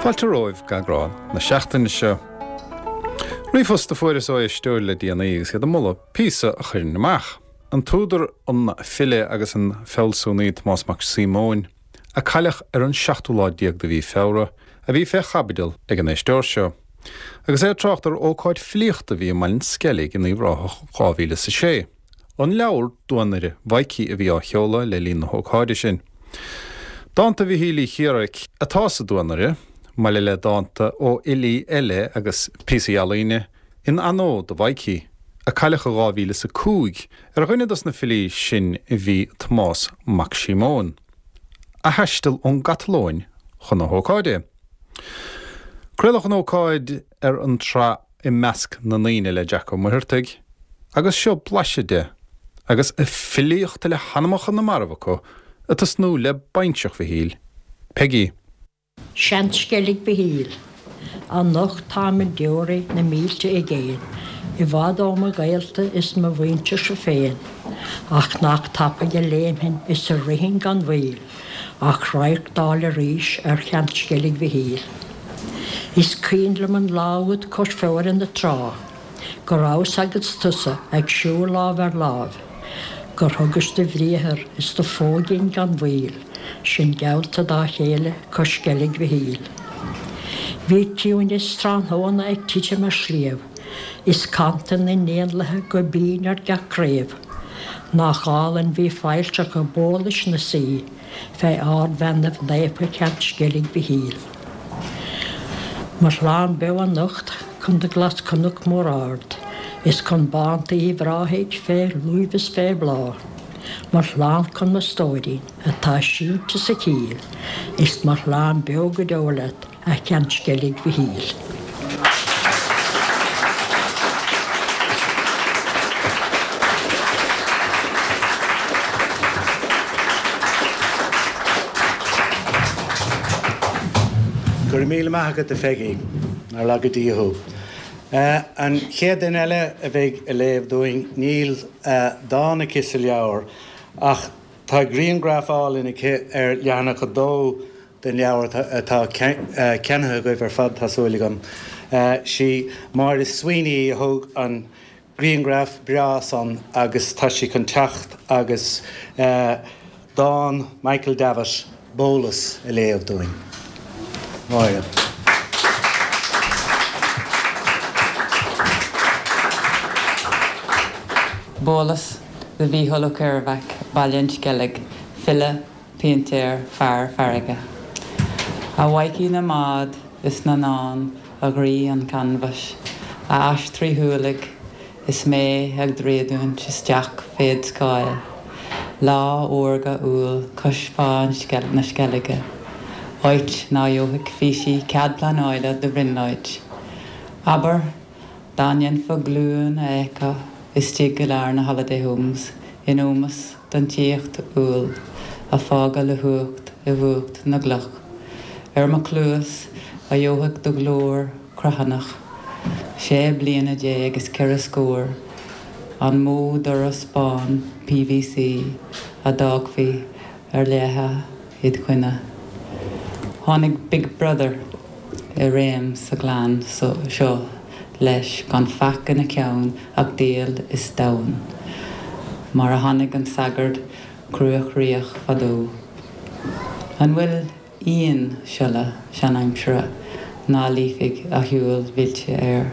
Fáilte romhaibh go eagrán na seachtaine seo. Ríomhphost a fuaireas ó éisteoir le déanaí agus iad ag moladh píosa a chuirfinn amach. An t-údar, an file agus an fealsúnaí Tomás Mac Síomóin, a cailleadh ar an seachtú lá déag de mhí Feabhra, a bhí fé chaibidil ag an éisteoir seo. Agus é ag trácht ar ócáid filíochta a bhí i mBaile an Sceilg in Uíbh Ráthach 2006. An leabhar Duanaire Mhaidhcí a bhí á sheoladh le linn na hócáide sin. Dánta Mhichíl Uí Chiaraic atá sa Duanaire, maille le dánta ó fhilí eile agus píosaí ealaíne, in onóir do Mhaidhcí, a cailleadh i 2005, Ar dhuine dos na filí sin bhí Tomás Mac Síomóin, a thaistil ón gCatalóin chun na hócáide. Craoladh an ócáid ar an tsraith I Measc na nDaoine le Jack Ó Muircheartaigh agus seo blaiseadh de, agus filíocht le hanamacha na marbh acu, ag tosnú le bainseach Mhichíl, Peigí. Seansceilg Mhichíl. Anocht táim ag deoraí na mílte i gcéin, i bhfad ó mo ghaolta is mo mhuintirse féin, ach nach tapaidh a léimfinn is a rithfinn gan mhoill ach radharc d'fháil arís ar Sheansceilg Mhichíl. Is cuimhin liom an lá úd cois Feoire na trá, Go rabhas agus tusa ag siúl lámh ar láimh, Gur thugais do bhriathar is do phóigín gan mhoill, Sinn geallta dá chéile cois Sceilg Mhichíl. Bhí ciúineas tráthnóna ag titim ar sliabh, Is cantain na n-éanlaithe go binn ar gach craobh. Nach álainn bhí failltreacha Bhólais 'na suí Fé ardbheannaibh naofa Sheansceilg Mhichíl. Mo shlán beo anocht chun do ghlas-chnoc mór ard, Is chun bánta Uíbh Ráthaigh fé luibh is fé bhláth, Mo shlán chun mo stóirín atá sínte sa chill, Is mo shlán beo go deo leat, a Sheansceilg Mhichíl. Go raibh míle maith agat, a Pheigí. Nár laga Dia thú. An chéad duine eile a bheidh ag léamh dúinn, níl dán aici sa leabhar ach tá grianghraf álainn aici ar leathanach a dó den leabhar atá ceannaithe agaibh ar fad, tá súil agam. Sí Máire Sweeney a thóg an grianghraf breá san agus tá sí chun teacht agus dán Michael Davitt, Bólas, a léamh dúinn. Máire. Bólas do Mhícheál Ó Ceirbheac, Baile an Sceilg, file, péintéir, fear farraige. A Mhaidhcí na mbád is na ndán, a dhraoi an chanbhais, a ais tríthualaigh, is mé ag dréadúint isteach féd scáil, lá órga Iúil cois Bhá na Sceilge, áit ná gheobhaidh físí cead pleanála do bhrionglóid. Abair, dá ndéanfá glúin a fheiceáil istigh i lár na holiday homes in ómós don tíocht Iúil a fágadh le huacht i bhfuacht na gcloch. Ar mo chluas a gheobhadh do ghlór cruithneach, sé bliana déag is ceithre scór, an mó doras bán PVC a d'fhágfaí ar leathadh id choinne. Tháinig Big Brother i réim sa ghleann seo leis gan faic ina cheann ach diabhal is domhan, mar a tháinig an sagart cruachroíoch fadó. An bhfuil aon siolla seanaimsire ná luífeadh a shiúl mhillte air?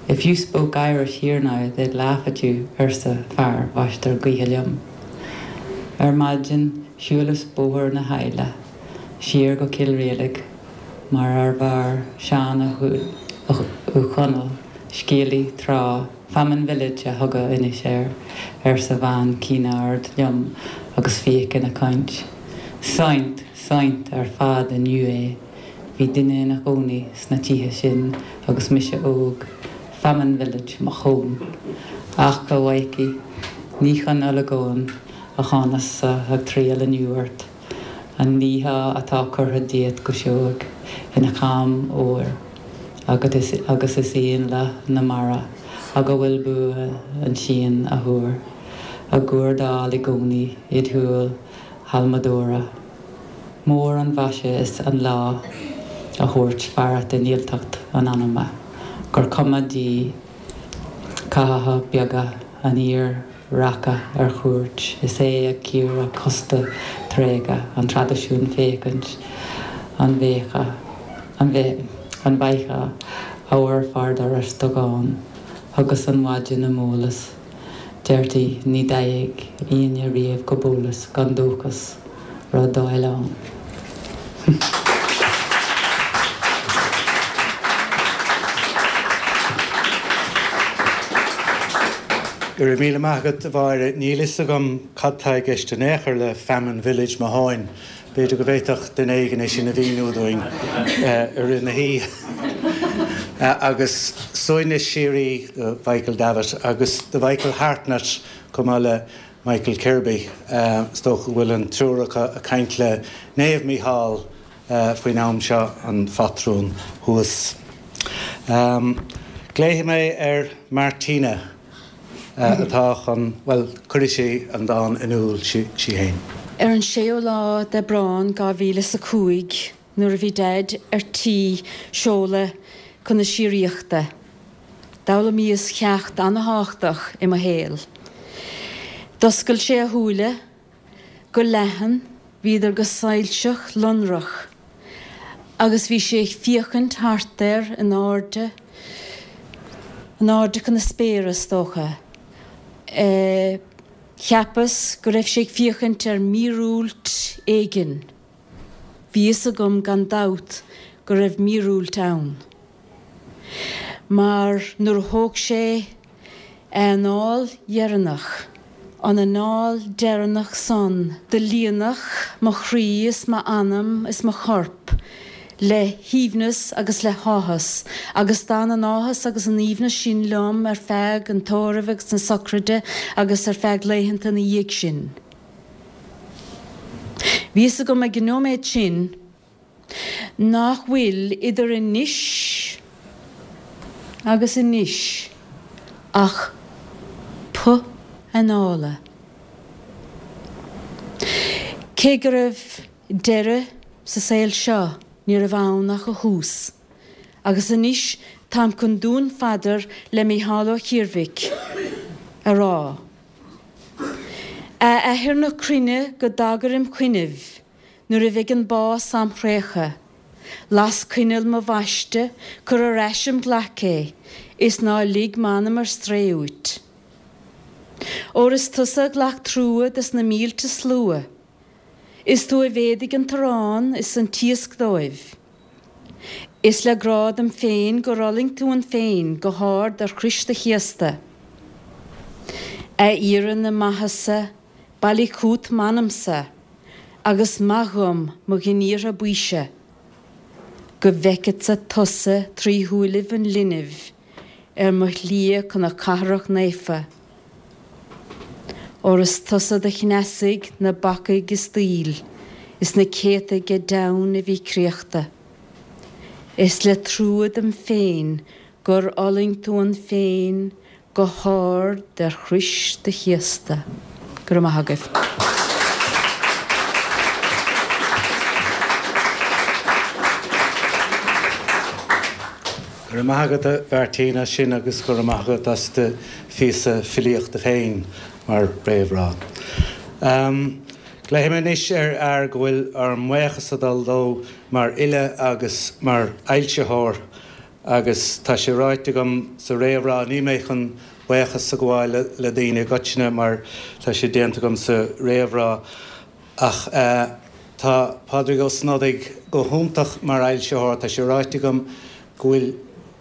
If you spoke Irish here now they'd laugh at you, arsa fear mháistir gaoithe liom. Ar maidin shiúlas bóthar na hAille siar go Cill Rialaig mar ar mhair Seán Ó Conaill, scéalaí, tráth, Famine Village a thugadh anois air, arsa bean cinn ard liom agus fíoch ina caint. Saint, saint ar fad inniu é. Bhí duine ina chónaí sna tithe sin agus mise óg. Famine Village, mo thóin. Ach, a Mhaidhcí, ní chun olagóin a thánas-sa ag triall inniu ort. An liathá atá curtha díot go seoigh ina cham óir agat agus is éanlaith na mara ag a bhfuil bua an tsíon a thuar á gcuardáil i gcónaí id shúil halmadóra. Mór an mhaise is an lá. a thabhairt fearacht i ndílteacht an anama, gur cuma di cathacha beaga an fhir rachadh ar cuairt is é ag cíoradh cósta tréigthe an traidisiúin féachaint an bhféachfadh an bhfaighfeá abhar fár doras do dhán. Thugas an mhaidin im eolas, deirtí ní dteigheadh aoinne riamh go Bólas gan dóchas rud d'fháil ann. Go raibh míle maith agat, a Mháire. Níl fhios agam cad tá i gceist in aon chor le Famine Village mo thóin. B'fhéidir go bhféadfadh duine éigin é sin a mhíniú dúinn i rith na hoíche. Agus suaimhneas síoraí do Mhichael Davitt agus do Mhichael Hartnett chomh maith le Michael Kirby. Is dócha go bhfuil an triúr acu ag caint le Naomh Mícheál faoin am seo, an phatrún thuas. Glaofaidh mé ar Martina atá chun, bhuel, cuirfidh sí an dán in iúl sí féin. Ar an séú lá d'Aibreán 2005, nuair a bhí Daid ar tí seoladh chun na síoraíochta, d'fhoghlaimíos ceacht an-thábhachtach i mo shaol. D'oscail sé a shúile go leathan, bhíodar go soilseach lonrach, agus bhí sé ag féachaint thart air in airde, in airde chun na spéire, is dócha. Cheapas go raibh sé ag féachaint ar mhíorúilt éigin. Bhí fhios agam gan dabht go raibh míorúilt ann. Mar nuair a thóg sé a anáil dheireanach, an anáil deireanach san, do líonadh mo chroí is m'anam is mo chorp le haoibhneas agus le háthas, agus d'fhan an áthas agus an aoibhneas sin liom ar feadh an tórraimh agus na socraide agus ar feadh laethanta ina dhiaidh sin. Bhí fhios agam ag an nóiméad sin nach bhfuil idir anois agus anois ach puth anála. Cé go raibh deireadh sa saol seo ní raibh ann ach a thús. Agus anois táim chun dúnphaidir le Mícheál Ó Ciarmhaic a rá. A Athair na cruinne go dtagair im choinnibh nuair a bheidh an bás am thraochadh. Las coinneal mo bhaiste, cuir ar ais im ghlac é, is ná lig m'anam ar strae uait. Óir is tusa a ghlac trua des na mílte slua. Is tú a mhéadaigh an t-arán is an t-iasc dóibh. Is le grá dom féin gur fhulaing tú an phéin go hard ar chrois do chéasta. A aoire na maitheasa, bailigh chút m'anamsa agus maith dhom mo ghníortha baoise, go bhfeiceadsa tusa trí shúilibh an linbh ar mo shlí chun na cathrach naofa. Óir is tusa do chneasaigh na bacaigh is daoil, is na céadtaigh ag deamhain a bhí créachta. Is le trua dom féin gur fhulaing tú an phéin go hard ar chrois do chéasta. Go raibh maith agaibh. Go raibh maith agat a Mhartina as sin agus go raibh maith agat as do phíosa filíochta féin mar réamhrá. Glaofaidh mé anois ar fhear go bhfuil ár mbuíochas ag dul dó mar fhile agus mar fhoilsitheoir agus tá sé ráite agam sa réamhrá, níl mé chun buíochas a ghabháil le daoine i gcoitinne mar tá sé déanta agam sa réamhrá ach tá Pádraig Ó Snodaigh go hiontach mar fhoilsitheoir, tá sé ráite agam go bhfuil,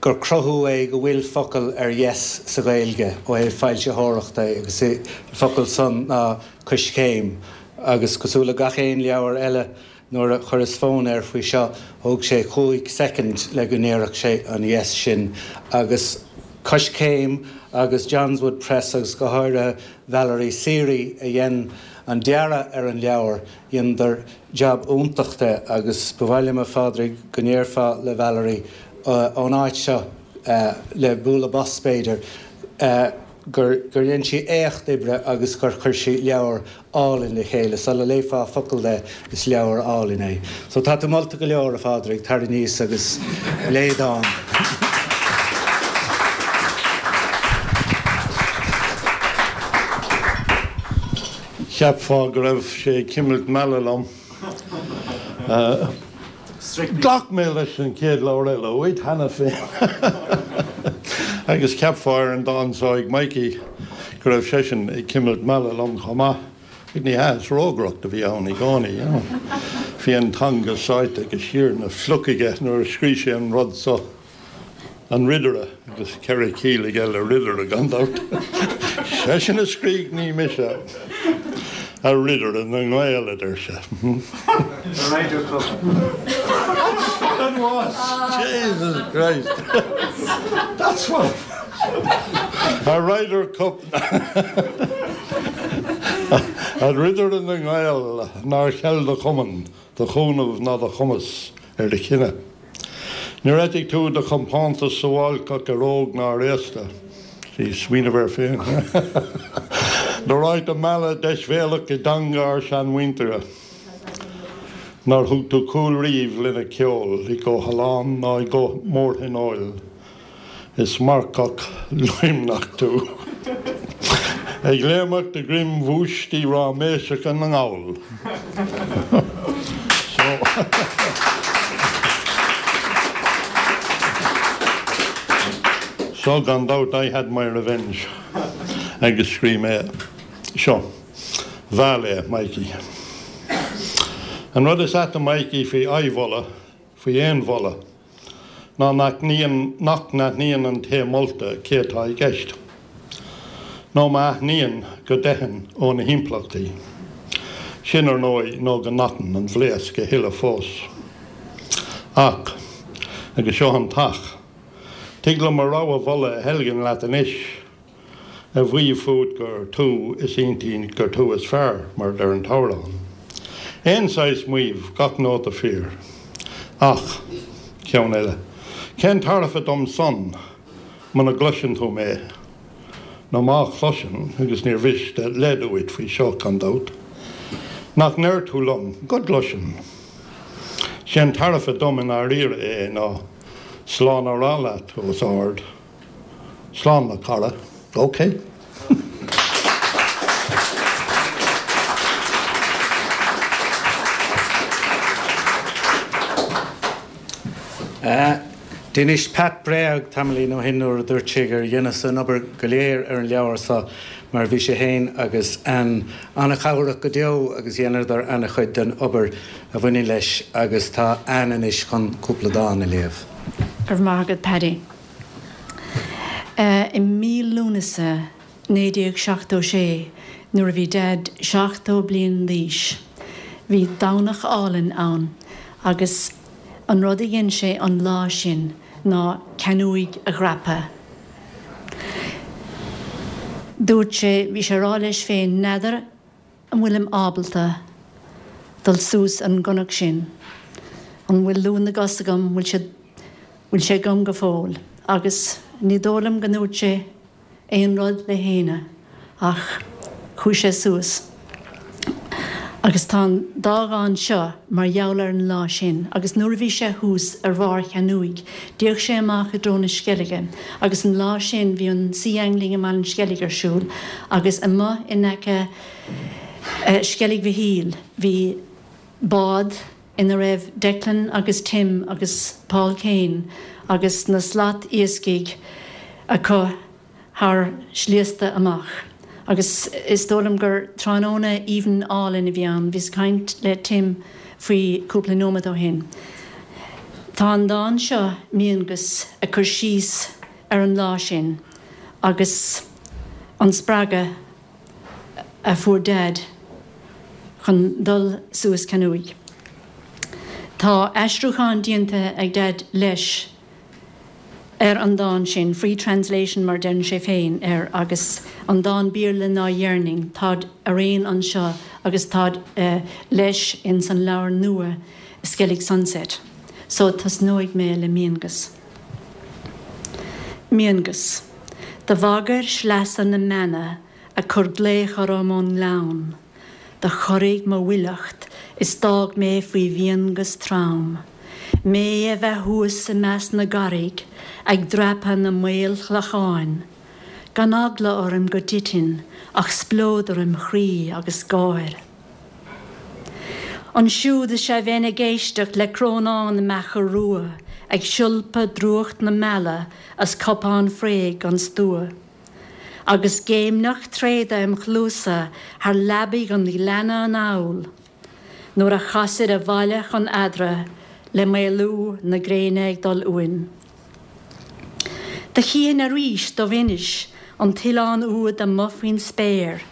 gur cruthú é go bhfuil focal ar dheis sa Ghaeilge ó thaobh foilsitheoireachta agus an focal san ná Coiscéim agus cosúil le gach aon leabhar eile nuair a chuireas fonn air faoi seo thóg sé chúig soicind le go ndéarfadh sé an yes sin agus Coiscéim agus Johnswood Press agus go háirithe Valerie Seery a dhein an dearadh ar an leabhar Dheineadar jab iontach de agus ba mhaith liom a Phádraig go ndéarfá le Valerie ón áit seo, le bualadh bos b'fhéidir, gur dhein sí éacht oibre agus gur chuir sí leabhar álainn le chéile. Sula léifeá focal de, is leabhar álainn é. So tá tú molta go leor, a Phádraig, tar aníos agus léigh dán. Cheapfá go raibh sé ag cimilt meala liom. Ghlac mé leis an chéad leabhar eile uait cheana féin agus cheapfá ar an dán seo ag Mikey go raibh seisean ag cimilt meala liom chomh maith. Ach ní hea, is rógaireacht a bhí ann i gcónaí, you know. Bhí an teanga sáite go siar ina phluc aige nuair a scrígh sé an rud so. An Ridire, agus 4 chiall aige le ridire, gan dabht. Seisean a scrígh, ní mise. A Ridire na nGael, a deir sé. The Ryder Cup. That's what it was! Jesus Christ! That's what it was! A Ryder Cup. A Ridire na nGael, nár cheil do chumann, do chúnamh ná do chumas ar do chine. Níor eitigh tú do chompántas suáilceach ar óg ná ar aosta. Sea, smaoineamh air féin. Nár fhág tú mealladh deisbhéalach i dteanga ár seanmhuintire. Nár thug tú cúl riamh lena ceol i gcomhthollán ná i gcomh-mórthionóil. Is marcach luimneach tú. Ag léimeacht de dhroim bhúistí ráiméiseacha na nGall. So. So, gan dabht, I had my revenge. Agus scríobh mé seo. Mheall é, Mikey. An rud is aite, Mikey, faoi adhmholadh, faoi aon mholadh, ná nach n-aithníonn an té molta cé atá i gceist, nó má aithníonn, go dteitheann ó na himpleachtaí. Sin, ar ndóigh, nó go n-atann an bhlaosc a thuilleadh fós. Ach, agus seo an t-ach, tig liom mo rogha mholadh a theilgean leat anois, a mhaíomh fút gur tú is iontaí, gur tú is fearr, mar a deir an t-amhrán. Aon saghas maímh, gach nóta fíor. Ach, ceann eile. Cén tairbhe dom san, muna gcloiseann tú mé? Nó má chloiseann, agus níor mhiste leid uait faoi seo, gan dabht, nach ndeir tú liom go gcloiseann? Sé'n tairbhe dom i ndáiríre é ná slán a rá leat os ard. Slán a chara. Ok. D'inis Pat bréag tamaillín ó shin nuair a dúirt sé gur dheineas an obair go léir ar an leabhar seo mar bhí sé féin agus Ann an-chabhrach go deo agus dheineadar an-chuid den obair a bhaineann leis agus tá Ann anois chun cúpla dán a léamh. Go raibh maith agat Paddy. I mí Lúnasa 1976 nuair a bhí Daid 70 bliain d'aois, bhí Domhnach álainn ann agus an rud a dhein sé an lá sin ná Ceann Uaighe a dhreapadh. Dúirt sé, bhí sé ag rá leis féin, n'fheadar an bhfuilim ábalta dul suas ar an gcnoc sin? An bhfuil lúth na gcos agam? Bhfuil sé, bhfuil sé agam go fóill? Agus ní dóigh liom go ndúirt sé aon rud le héinne ach chuaigh sé suas. Agus tá an dá dhán seo mar gheall ar an lá sin. Agus nuair a bhí sé thuas ar bharr Cheann Uaighe, d'fhéach sé amach i dtreo na Sceilge agus an lá sin bhí an Sea Angling i mBaile an Sceilg ar siúl agus amuigh in aice Sceilg Mhichíl bhí bád ina raibh Declan agus Tim agus Paul Kane agus na slat iascaigh acu thar sliasta amach agus is dóigh liom gur tráthnóna aoibhinn álainn a bhí ann. Bhíos ag caint le Tim faoi cúpla nóiméad ó shin. Tá an dán seo, Miangas, ag cur síos ar an lá sin agus an spreagadh a fuair Daid chun dul suas Ceann Uaighe. Tá aistriúchán déanta ag Daid leis. ar an dán sin, free translation mar deireann sé féin air, agus an dán Béarla ná Yearning, táid araon anseo agus táid leis ins an leabhar nua Skellig Sunset. So tosnóidh mé le Miangas. Miangas. Do bhagair sleasa na mbeanna ag cur glaoch orm ón ngleann. Do chorraigh mo fhuileacht is d'fhág mé faoi mhiangas trom. Mé a bheith thuas i measc na gcarraig ag dreapadh na maolchlocháin. Gan eagla orm go dtitfinn ach spleodar im chroí agus gáir. Ansiúd is ea bheinn ag éisteacht le crónán na mbeacha rua ag siolpadh drúcht na meala as cupán fraoigh gan stua. Agus géimneach tréada im chluasa thar leabaidh an ghleanna anall nuair a chasaid abhaile chun eadra le maolú na gréine ag dul uainn. Do chífinn arís Dubh Inis, an t-oileán úd amuigh faoin spéir.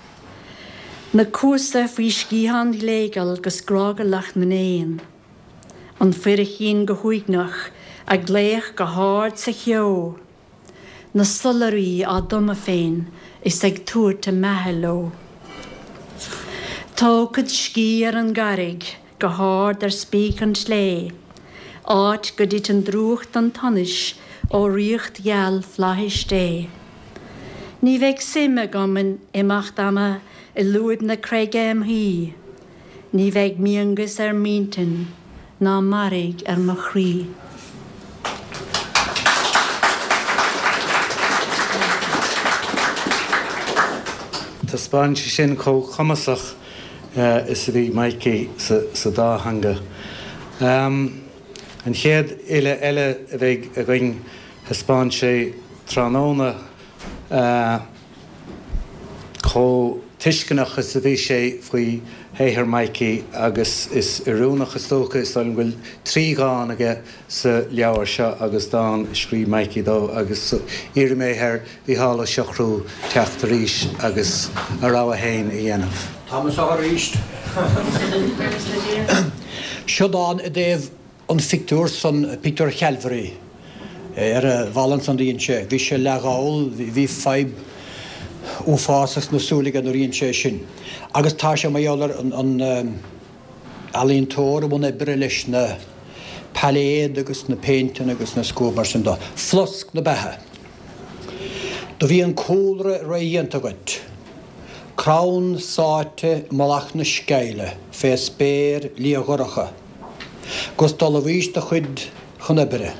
Na cuasa faoi sciatháin ghléigeal 'gus grágalach na n-éan. An fuirchín go huaigneach ag glaoch go hard sa cheo. Na sollairí á dtumadh féin is ag tabhairt a mbeatha leo. Tógfad scíth ar an gcarraig go hard ar spíce an tslé, áit go dtiteann drúcht an tsonais ó ríocht gheal flaithis Dé. Ní bheidh suim agam in imeacht ama i lúib na creige im shuí, ní bheidh miangas ar m'intinn ná mairg ar mo chroí. Taispeánann sé sin chomh cumasach is a bhí Mikey sa dá theanga. An chéad fhile eile a bheidh againn, thaispeáin sé tráthnóna chomh tuisceanach is a bhí sé faoi shaothar Mikey agus is oiriúnach is dócha, is dóigh liom go bhfuil 3 dhán aige sa leabhar seo agus dán a scríobh Mikey dó agus iarrfaidh mé ar Mhícheál Ó Siochrú teacht arís agus a rogha féin a dhéanamh. Tá mé anseo arís. Seo dán i dtaobh an phictiúr san, pictiúr Chalvary, ar an bhalla ansan do dhein sé. Bhí sé leath-dhall, bhí fadhb uafásach sna súile aige nuair a dhein sé sin. Agus tá sé mar gheall ar an ealaíontóir i mbun oibre leis na pailéad agus na péinteanna agus na scuab mar sin dó. Flosc na beatha. Do bhí an cúlra rédhéanta agat. Crann sáite i mullach na sceille fé spéir liathdhorcha. 'Gus d'ullmhaís do chuid chun oibre.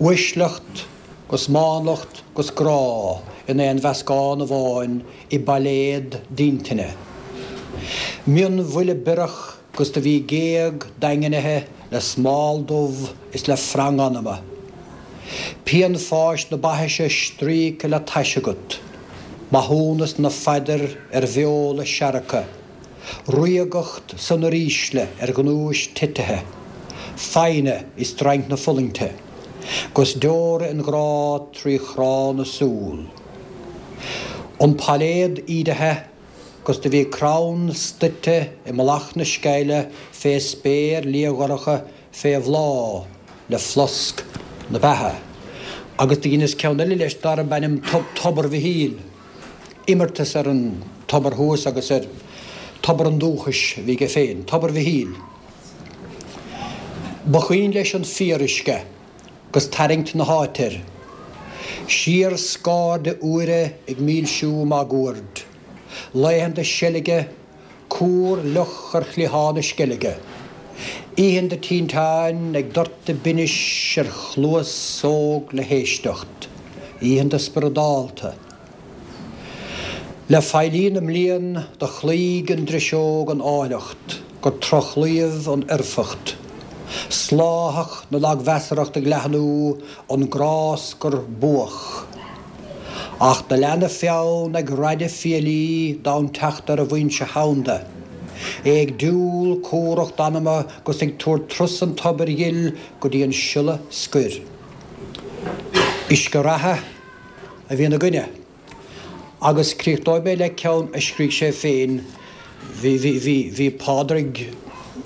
Uaisleacht 'gus mánlacht 'gus grá in aon mheascán amháin i bpailéad d'intinne. Mionbhuille biorach 'gus do bhí géag daingnithe le smál dubh is le frang anama. Pian fáis na baithise stríoctha le tais agat. Maithiúnas na phaidir ar bheola seargtha. Ríogacht san uirísle ar ghnúis titithe. Foighne i stroinc na fulaingte. 'Gus deora an ghrá trí chrá na súl. An pailéad ídithe 'gus do bhí crann stoite i mullach na sceille fé spéir liathdhorcha fé bhláth le flosc na beatha. Agus do dheineas ceann eile leis darb ainm Tobar Mhichíl, imeartas ar an tobar thuas agus ar tobar an dúchais a bhí aige féin, Tobar Mhichíl. Ba chaoin leis an fíoruisce 'gus tarraingt na háite air. Siar scairde úire ag milsiú máguaird. Laethanta seilge, cúr fhliuch ar chliathán na sceilge. Oícheanta tinteáin ag doirteadh binnis ar chluas óg le héisteacht. Oícheanta spioradálta. Le faillí na mblian do chloígh an driseog an áilleacht gur trochlaíomh an fhoirfeacht. Sláthach na lagmheasarthacht ag leathnú an gráscar buach. Ach do lean a pheann ag raideadh fiailí d'fhonn teacht ar an bhfoinse thomhanda. É ag diúl cumhracht anama 'gus ag tabhairt turas an tobair ghil go dtí an siolla scoir. Uisce reatha a bhí ina gcoinne. Agus críochnóidh mé le ceann a scrígh sé féin, bhí, bhí, bhí, bhí Pádraig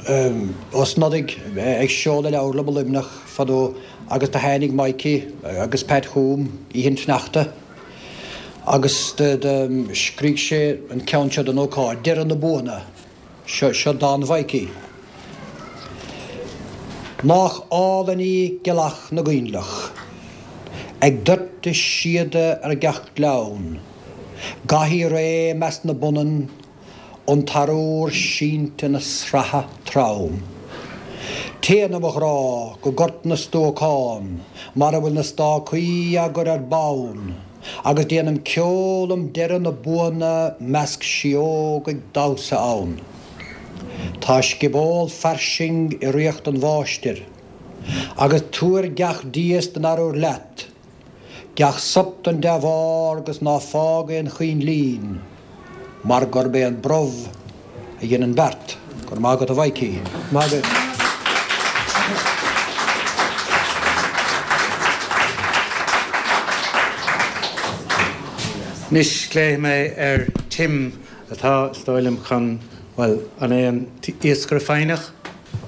Ó Snodaigh ag seoladh leabhar liom i Luimneach fadó agus do tháinig Mikey agus Pat chugam oíche an tsneachta agus do, do scrígh sé an ceann seo don ócáid, Deireadh na Buanna. Seo, seo dán Mhaidhcí. Nách álainn í gealach na gcoinnleach. Ag doirteadh síoda ar gach gleann, Gothaí réidh i measc na bpunann, An t-arúr sínte 'na sratha trom. Téann, a mo ghrá, go Gort na Stuacán, Mar a bhfuil na stácaí á gcur ar bonn, Agus déanam ceol um deireadh na buanna 'Measc síóg ag damhsa ann. Tá scioból fairsing i ríocht an mháistir, Agus tabhair gach dias den arúr leat, Gach sop den dea-bharr 'gus ná fág aon choinlín, Mar gurb é an brobh a dhein an beart. Go raibh maith agat a Mhaidhcí. Maith agat. Anois glaofaidh mé ar Tim atá, is dóigh liom, chun, bhuel, an é an tIascaire Foighneach?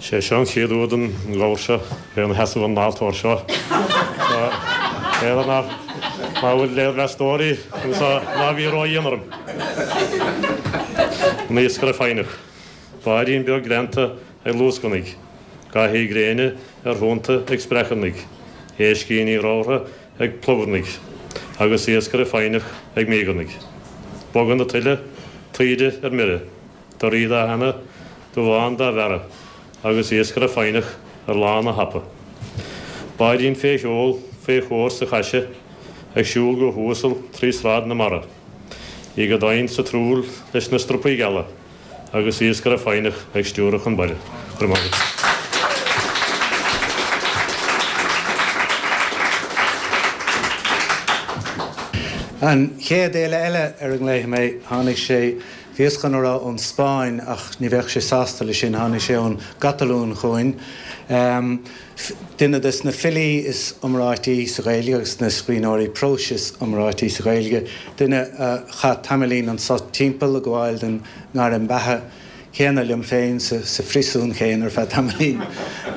Sé seo an chéad uair don ghabhar seo bheith ina sheasamh ar an altóir seo. B'fhéidir nach ná bhfuil léirmheastóirí anseo ná bí ródhian orm. An Iascaire Foighneach. Báidín beag greanta ag luascarnaigh. Gothaí gréine ar thonnta ag spreacarnaigh. Éiscíní ramhra ag plobarnaigh. Agus iascaire foighneach ag míogarnaigh. Bogadh na tuile, taoide ar mire. Doirí dá theannadh, dubhán dá bhearradh, agus iascaire foighneach ar lána thapa. Báidín fé sheol, fé chóir sa chaise, ag siúl go huasal trí sráid na mara. Í go domhain sa truaill leis na strupaí geala, agus iascaire foighneach ag stiúradh chun baile. Go raibh maith agat. An chéad fhile eile ar a nglaofaidh mé, tháinig sé Bhíos chun a rá ón Spáinn ach ní bheadh sé sásta leis sin, tháinig sé ón gCatalúin chugainn. Duine des na filí is iomráití sa Ghaeilge agus na scríbhneoirí próis is iomráití sa Ghaeilge, duine a chaith tamaillín anso timpeall ag gabháil den ngairm beatha chéanna liom féin sa phríosún chéanna ar feadh tamaillín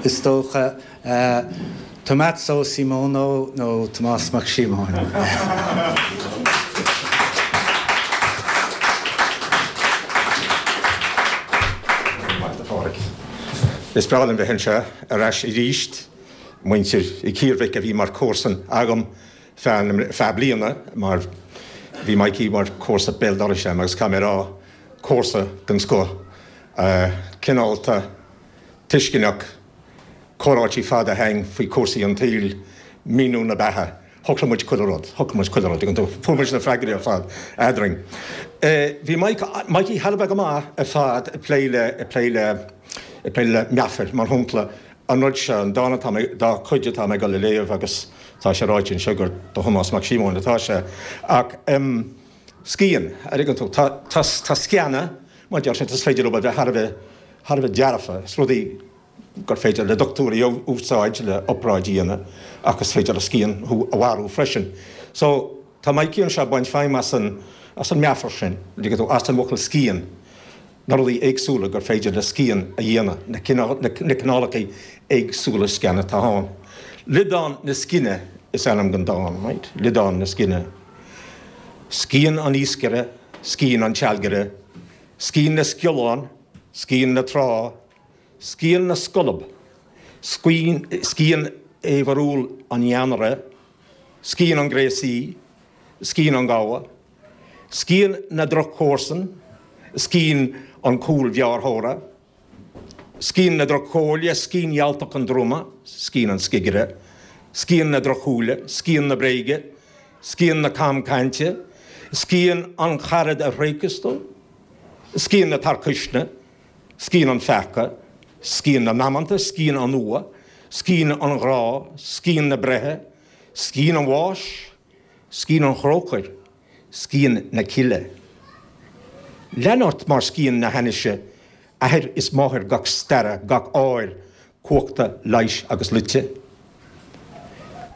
is dócha. Tommaso Simono nó Tomás Mac Síomóin. Maith a Phádraig. Is breá liom bheith anseo ar ais arís. Muintir Uí Chiarmhic a bhí mar comharsan agam feadh bliana mar bhí Mikey mar comharsa béal dorais agam agus caithfidh mé a rá, comharsa den scoth, cineálta, tuisceanach, comhráití fada againn faoi chúrsaí an tsaoil, míniú na beatha. Shocraigh muid chuile rud, shocraigh muid chuile rud, fuair muid na freagraí ar fad eadrainn. Bhí Mike, Mikey thar a bheith go maith ar fad ag plé le, ag plé le, ag plé le meafair, mar shampla, an rud seo, an dán atá mé, dá chuid atá mé ag dul a léamh agus tá sé ráite anseo gur do Thomás Mac Síomóin atá sé, ach em, scian, an dtuigeann tú, tá, tá, tá scianna, mar deir siad, is féidir leo a bheith thar a bheith, thar a bheith dearfa, is rudaí gur féidir le dochtúirí a úsáid le obráid a dhéanamh ach is féidir le scian thú a mharú freisin. So, tá Mikey anseo ag baint feidhm as an, as an meafar sin, an dtuigeann tú, as an bhfocal scian, na rudaí éagsúla gur féidir le scian a dhéanamh, na cineál, na cineálacha éagsúla scian atá ann. Liodán na Scine is ainm don dán, right? Liodán na Scine. Scian an iascaire, scian an tsealgaire, scian na sciollán, scian na trá, Scian na scolb, scian fhaobharúil an jeannaire, scian an ghréasaí, scian an ghabha, scian na droch-chomharsan, scian an chúlghearrthóra, scian na droch-chomhairle, scian fhealltach an druma, scian an scigire, scian na drochshúile, scian na bréige, scian na camchainte, scian an charad a thréigfeas tú, scian na tarcuisne, Scian an pheaca, scian na ndamanta, scian an fhuatha, scian an ghrá, scian na breithe, scian an bháis, scian an chrócair, scian na cille. Lean ort mar scian na hainnise, athair is máthair gach staire, gach áir, cumhachta, leighis agus loite.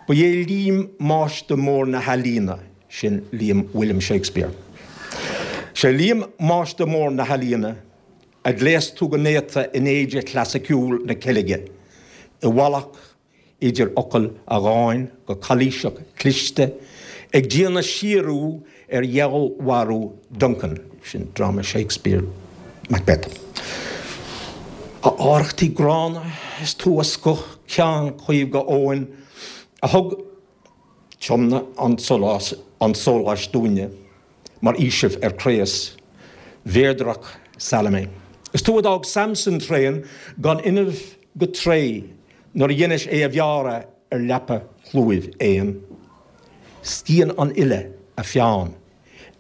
Ba é Liam máistir mór na healaíona, sin Liam William Shakespeare. Sé Liam máistir mór na healaíona, a ghléas tú go néata in éide chlasaiceúil na ceilge, i bhfalach idir fhocail a dháin go calaoiseach cliste, ag déanamh síorú ar fheallmharú Duncan, sin dráma Shakespeare, Macbeth. A arrachtaí gránna, is tú a scoith ceann caomh go Eoghain, a thug. Tiomnaigh an sólás, an sóláis dúinne mar fhaoiseamh ar craos. Mhéadrach Salome. Is tú a d'fhág Samson tréan gan fhuinneamh go tréith nuair a dheinis é a bhearradh ar leapa chlúimh éan. Scian an fhile a pheann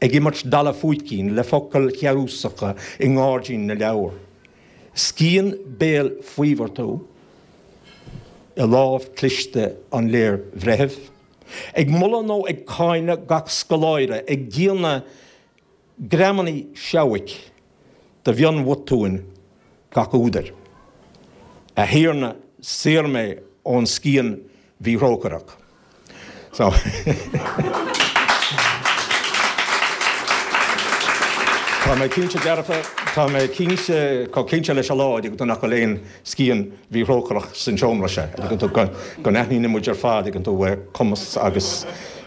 ag imirt dalladh fúicín le focail shearúsacha i ngairdín na leabhar. Scian béil faobhair tú i lámh cliste an léirbhreithimh, ag moladh nó ag cáineadh gach scoláire, ag déanamh greamannaí seabhaic de mhionbhotúin gach údair. A Thiarna, saor mé ón scian mhíthrócaireach. So. Tá mé cinnte dearfa, tá mé cinnte, chomh cinnte leis an lá, an dtuigeann tú, nach bhfuil aon scian mhíthrócaireach san seomra seo, an dtuigeann tú, go, go n-aithníonn muid ar fad, an dtuigeann tú, cumas agus,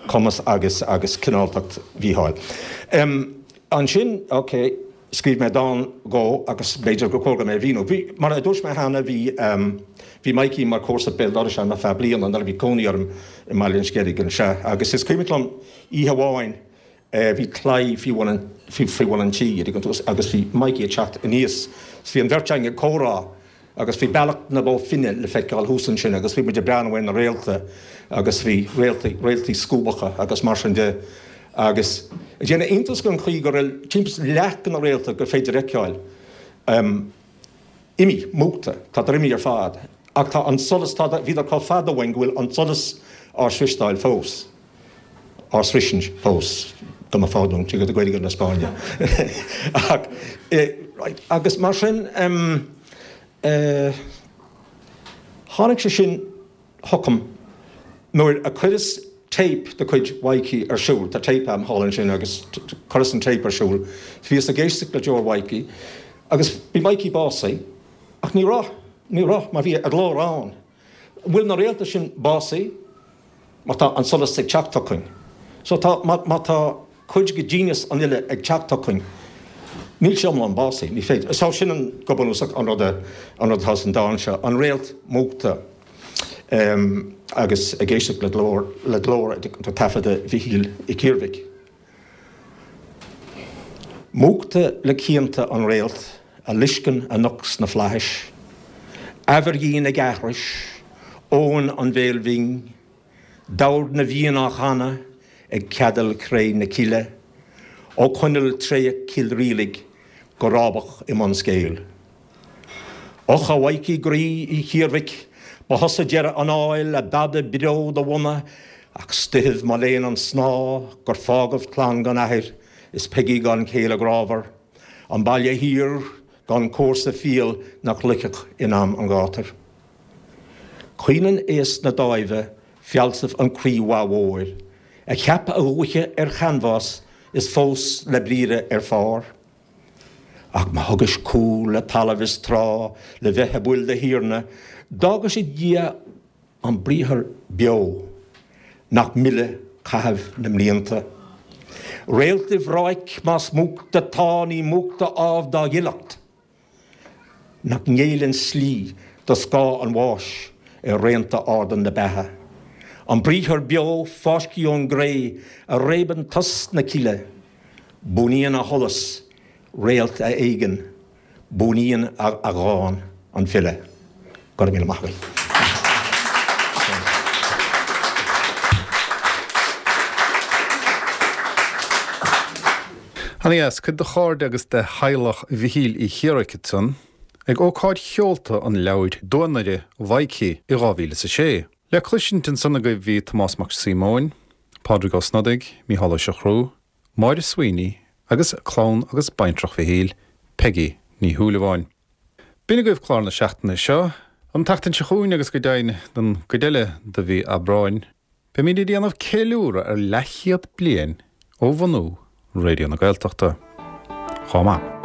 cumas agus, agus cineáltacht Mhícheáil. Ansin, ok. Scríobh mé dán dhó agus b'fhéidir gur chóir dom é a mhíniú. Bhí, mar a dúirt mé cheana, bhí, bhí Mikey mar chomharsa béal dorais agam ar feadh bliana nuair a bhí cónaí orm i mBaile an Sceilg anseo agus is cuimhin liom oíche amháin bhí claí faoi bhun an, faoi bhun an tí, an dtuigeann tú, agus bhí Mikey ag teacht aníos is bhí an bheirt againn ag comhrá Agus bhí Bealach na Bó Finne le feiceáil thuas ansin agus bhí muid ag breathnú ar na réalta agus bhí réaltaí, réaltaí scuabacha agus mar sin de agus ag déanamh iontas den chaoi go raibh timpeall is leath de na réalta gur féidir a fheiceáil imithe, múchta, tádar imithe ar fad ach tá an solas, tá, bhíodar chomh fada uainn go bhfuil an solas á sroisteáil fós. á sroisint fós, go mba phardún, tuige do Gaeilge na Spáinne. Ach, right, agus mar sin, em, eh, tháinig sé sin chugam nuair a chuireas téip de chuid Mhaidhcí ar siúl, tá téip a'm thall ansin agus chuireas an téip ar siúl, bhíos ag éisteacht le deoir Mhaidhcí agus bhí Maidhcí básaithe ach ní raibh, ní raibh, mar bhí a ghlór ann. An bhfuil na réalta sin básaithe? Mar tá an solas ag teacht chugainn. So tá, má, má tá cuid de ghenius an fhile ag teacht chugainn, níl sé iomlán básaithe, ní féidir. So sin an, go bunúsach, an rud a, an rud atá san dán seo, an réalt múchta em, agus ag éisteacht le glór, le glór taifeadta Mhichíl Uí Chiarmhic. Múchta le cianta an réalt a loisceann anocht sna flaithis, Aimhirghin ag aithris, Eoin an bhéil bhinn, Dord na bhFiann á chanadh ag ceadail chré na cille, Ó choinneal tréach Chill Rialaig go rábach i mbun Scéil. Och, a Mhaidhcí groí Uí Chiarmhic, ba thusa deireadh an áil, a b'fhada beo do bhunadh, ach 's doicheamh mo léan an snáth gur fágadh clann gan athair is Peigí gan chéile grámhar, an baile thiar gan comharsa fial nach loicfeadh in am an ghátair. Caoineann aos na dáimhe fealsamh an chroí mhaith mhóir, a cheap a dhúiche ar chanbhás is fós le briathra ar phár. Ach má thugais cúl le talamh is trá le bheith i bpoill do Thiarna, d'fhágais id dhiaidh an briathar beo nach milleadh caitheamh na mblianta. Réalt i bhráic más múchta 'tá ní múchta ámh dá ghileacht. Nach ngéilleann slí do scáth an bháis ar raonta arda na beatha. An briathar beo fáiscthe ón gcré a réabann tost na cille. Buanaíonn a sholas, réalt a éagann, buanaíonn a dhán, an file. Go raibh míle maith agaibh. Ana dheas, cuid de chairde agus de theaghlach Mhichíl Uí Chiarmhic ansan ag ócáid sheolta an leabhair Duanaire Mhaidhcí i 2006. Le cloisint ansan agaibh bhí Tomás Mac Síomóin, Pádraig Ó Snodaigh, Mícheál Ó Siochrú, Máire Sweeney agus clann agus baintreach Mhichíl, Peigí Ní Shúilleabháin. B'in agaibh clár na seachtaine seo. An tseachtain seo chugainn agus go deimhin don gcuid eile de mhí Aibreáin, beimid ag déanamh ceiliúradh ar leathchéad bliain ó bhunú Raidió na Gaeltachta. Chomh maith.